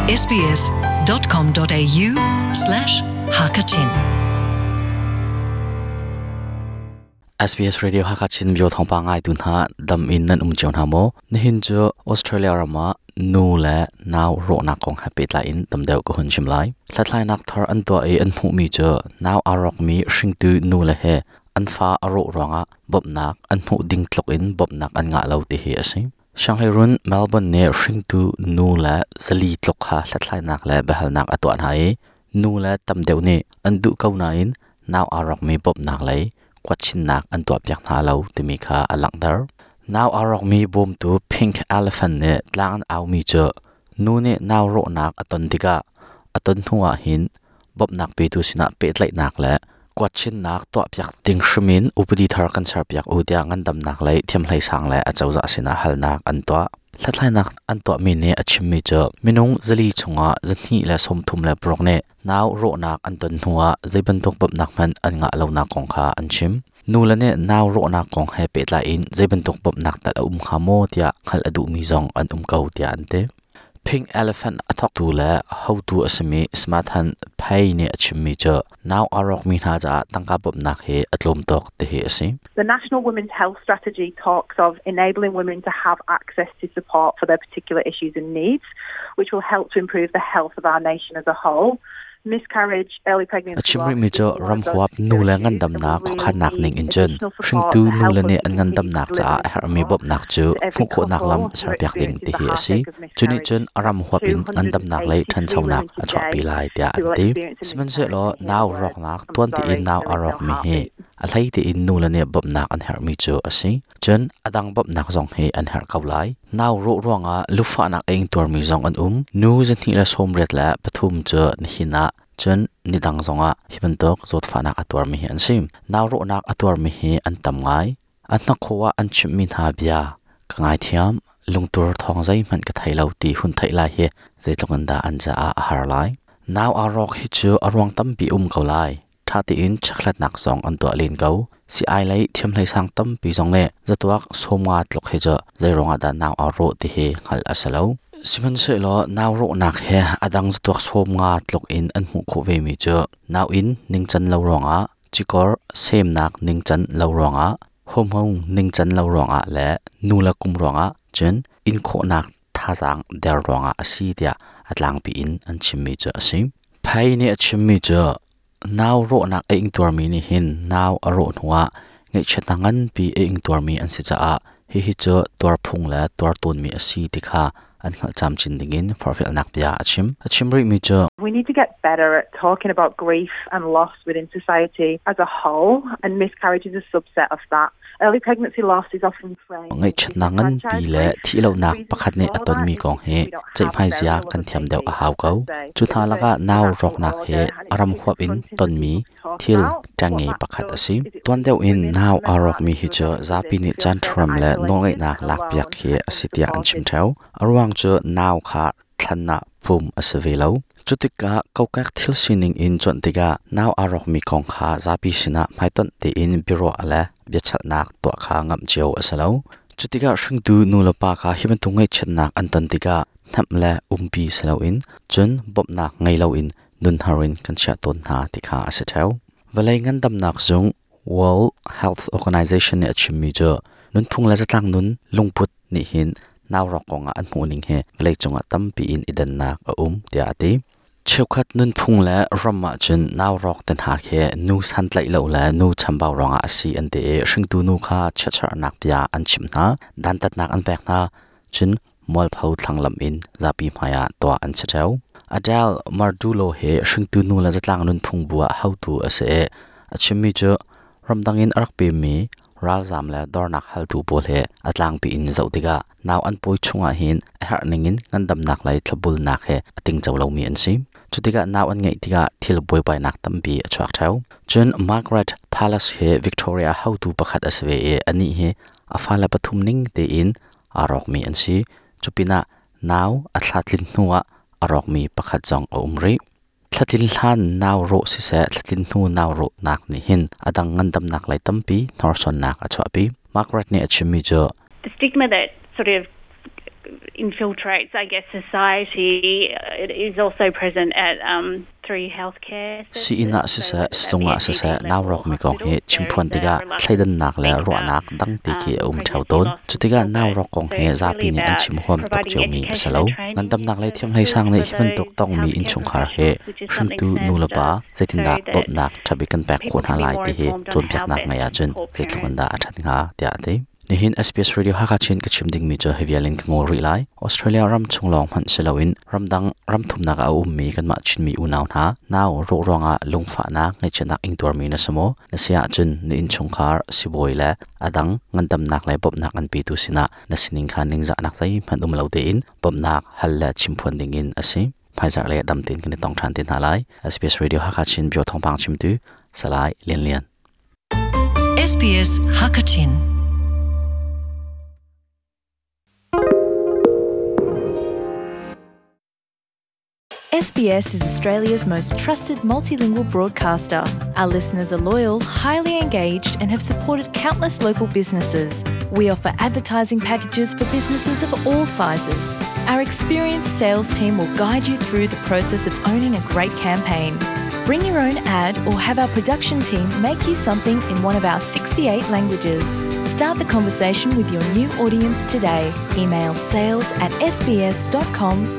sbs.com.au slash hakachin SBS Radio Hakachin bio thawngpang ngai tu hna dam in nan um cio hna maw nihin cu Australia ram ah nu le nau rawhnak kong he pehtlai in tam deuh ka hun chim lai hlathlainak thar an tuah i an hmuhmi cu nau aa rawkmi hringtu nu le he an fa a rawh ruangah bawmhnak an hmuh ding tluk in bawmhnak an ngah lo ti hi a si. Sianghleirun Melbourne nih hringtu nu le zali tluk kha hlathlainak le biahalnak a tuah hna i nu le tam deuh nih an duh ko nain nau aa rawkmi bawmhnak lei kuatchinnak an tuahpiak hna lo timi kha a langhter. Nau aa rawkmi bawmtu Pink Elephant nih tlang an aumi cu nu nih nau rawhnak a ton tikah a ton hnu ah hin bawmhnak petu sinah pehtlaihnak le kuatchinnak tuahpiak ding hrim in upadi thar kan serpiak u tiah ngandamnak lei thiamhlei sang le acozah sinah halnak an tuah. Hlathlainak an tuahmi nih a chimmi cu minung zali chungah 236 nih nau rawhnak an ton hnuah zeibantuk bawmhnak hmanh an ngah lonak kong kha an chim. Nu le nih nau rawhnak kong he pehtlai in zeibantuk bawmhnak tal a um hnga maw tiah hngalh a duhmi zong an um ko tiah an ti. Pink Elephant a thawktu le hotu a simi Smathan Phei nih a chimmi cu nau aa rawkmi hna caah tangka bawmhnak hi a tlawm tuk ti hi a si. The National Women's Health Strategy talks of enabling women to have access to support for their particular issues and needs, which will help to improve the health of our nation as a whole. Miscarriage, early pregnancy A chim rihmi cu ramhuap nu le ngandamnak khuakhannak ning in cun hringtu nu le nih an ngandamnak caah a herhmi bawmhnak cu hmuh khawhnak lam serpiak ding ti hi a si. Cu nih cun a ram huap in ngandamnak lei ṭhanchonak a chuahpi lai tiah an ti. Sihmanhsehlaw nau rawknak tuan tein nau a rawkmi hi a hlei tein nu le nih bawmhnak an herhmi cu a si. Cun a dang bawmhnak zong hi an herh ko lai. Nau rawh ruangah lufahnak a ingtuarmi zong an um. Nu 283 cu nihin ah cun nidang zongah hi bantuk zawtfahnak a tuarmi hi an si. Nau rawhnak a tuarmi hi an tam ngai. A hnakhaw ah an chimhmi hna bia ka ngaithiam, lungtur thawng zeihmanh ka thei lo ti hun theih lai hi zeitluk in dah an caah a har lai. Nau aa rawk hi cu a ruang tampi um ko lai. Ṭha tein chekhlatnak zong an tuah len ko. Si-ai lei thiamhlei sang tampi zong nih zatuak 50 tluk hi cu zeiruangah dah nau aa rawh ti hi hngalh a si lo. Sihmanhsehlaw nau rawhnak he a dang zatuak 50 tluk in an hmuh khawh vemi cu nauinn ningcan lo ruangah, cikor semnak ningcan lo ruangah, hormone ningcan lo ruangah le nu le kum ruangah cun inn khawhnak thazaang der ruangah a si tiah a tlangpi in an chimmi cu a si. Phei nih a chimmi cu nau rawhnak a ingtuarmi nih hin nau a rawh hnuah ngaihchiatnak nganpi a ingtuarmi an si caah hihi cu tuarphung le tuar tawnmi a si ti kha an hngalh camcin dingin forhfialnak bia a chim. A chim rihmi cu We need to get better at talking about grief and loss within society as a whole, and miscarriage is a subset of that. Early pregnancy loss is often framed Ngaihchiatnak nganpi le thihlohnak pakhat nih a tonmi kong hi ceihmai zia kan thiam deuh a hau ko. Cu hna lakah nau rawknak hi a ram huap in tonmi thil ṭengnge pakhat a si. Tuan deuh in nau aa rawkmi hi cu zapi nih caanṭhuram le nawlngeihnak lakpiak hi a si tiah an chim ṭheo. A ruang cu nau kha thlan ah pum a si ve lo. Cutikah kokek thil sining in cuanh tikah nau aa rawkmi kong kha zapi sinah hmaitonh tein biaruah le biachalhnak tuah kha ngamh cio a si lo. Cutikah hringtu nulepa kha hi bantuk ngaihchiatnak an ton tikah hnamh le umpi si loin cun bawmhnak ngei loin nunhar in kan chiah tawn hna ti kha a si ṭheo. Vawlei ngandamnak zung World Health Organization nih a chimmi cu nunphung le zatlang nun lungput nih hin naurawk kongah an hmuhning hi vawleicung ah tampi in i dannak a um tiah a ti. Cheukhat nunphung le ram ahcun naurawk te hna khi nu santlaih lo le nu chambau ruangah a si an ti i hringtu nu kha chiatserhnak bia an chimh hna, dantatnak an pek hna, cun mualpho thlanglamh in zapi hmaiah tuah an si ṭheo. Adele Mardulo hi hringtu nu le zatlang nunphung bu ah hotu a si i a chimmi cu ramdang in a rak pemmi ralzaam le dornak haltu pawl he a tlangpi in zoh tikah nau an pawi chungah hin a herh ningin ngandamnak lei thlopbulnak he a tingco lomi an si. Cutikah nau an ngeih tikah thil buaibainak tampi a chuak ṭheo. Cun Margaret Palace hi Victoria hotu pakhat a si ve i anih hi a fale pathum ning tein aa rawkmi an si. Cupinah nau a thla tlin hnuah a rawkmi pakhat zong a um rih. Thlatlin hlan nau rawh siseh, thlatlin hnu nau rawhnak nih hin a dang ngandamnak lei tampi hnorsuannak a chuahpi. Margaret nih a chimmi cu The stigma that sort of infiltrates, I guess, society. It is also present at three healthcare Sii-inn ah siseh, sizung ah siseh nau rawkmi kong hi chimphuan tikah thleidannak le ruahnak dangti khi a um ṭheo tawn. Cutikah nau rawk kong hi zapi nih an chim huam tuk ciomi a si lo. Ngandamnak lei thiamhlei sang nih hi bantuk tongmi innchungkhar hi hringtu nulepa zeitindah bawmhnak ṭhabik kan pek khawh hna lai ti hi cawnpiaknak ngei ahcun zeitluk in dah a ṭhat hnga tiah a ti. Nihin SBS Radio Hakha Chin ka chim dingmi cu hi vial in ka ngol rih lai. Australia ram chung lawng hmanh si loin ramdang ramthumnak ah a ummi kanmah Chinmi unau hna nau rawh ruangah lungfahnak ngaihchiatnak ingtuarmi na si maw? Na si ahcun na innchungkhar sibawi le a dang ngandamnak le bawmhnak an petu sinah na sining kha ningzahnak zeihmanh um lo tein bawmhnak hal le chimphuan dingin a si. Hmaizarh le dam tein kan i tong ṭhan te hna lai. SBS Radio Hakha Chin Bio thawngpang chimtu Salai Lian Lian. SBS Hakachin. SBS is Australia's most trusted multilingual broadcaster. Our listeners are loyal, highly engaged, and have supported countless local businesses. We offer advertising packages for businesses of all sizes. Our experienced sales team will guide you through the process of owning a great campaign. Bring your own ad or have our production team make you something in one of our 68 languages. Start the conversation with your new audience today. Email sales at sbs.com.au.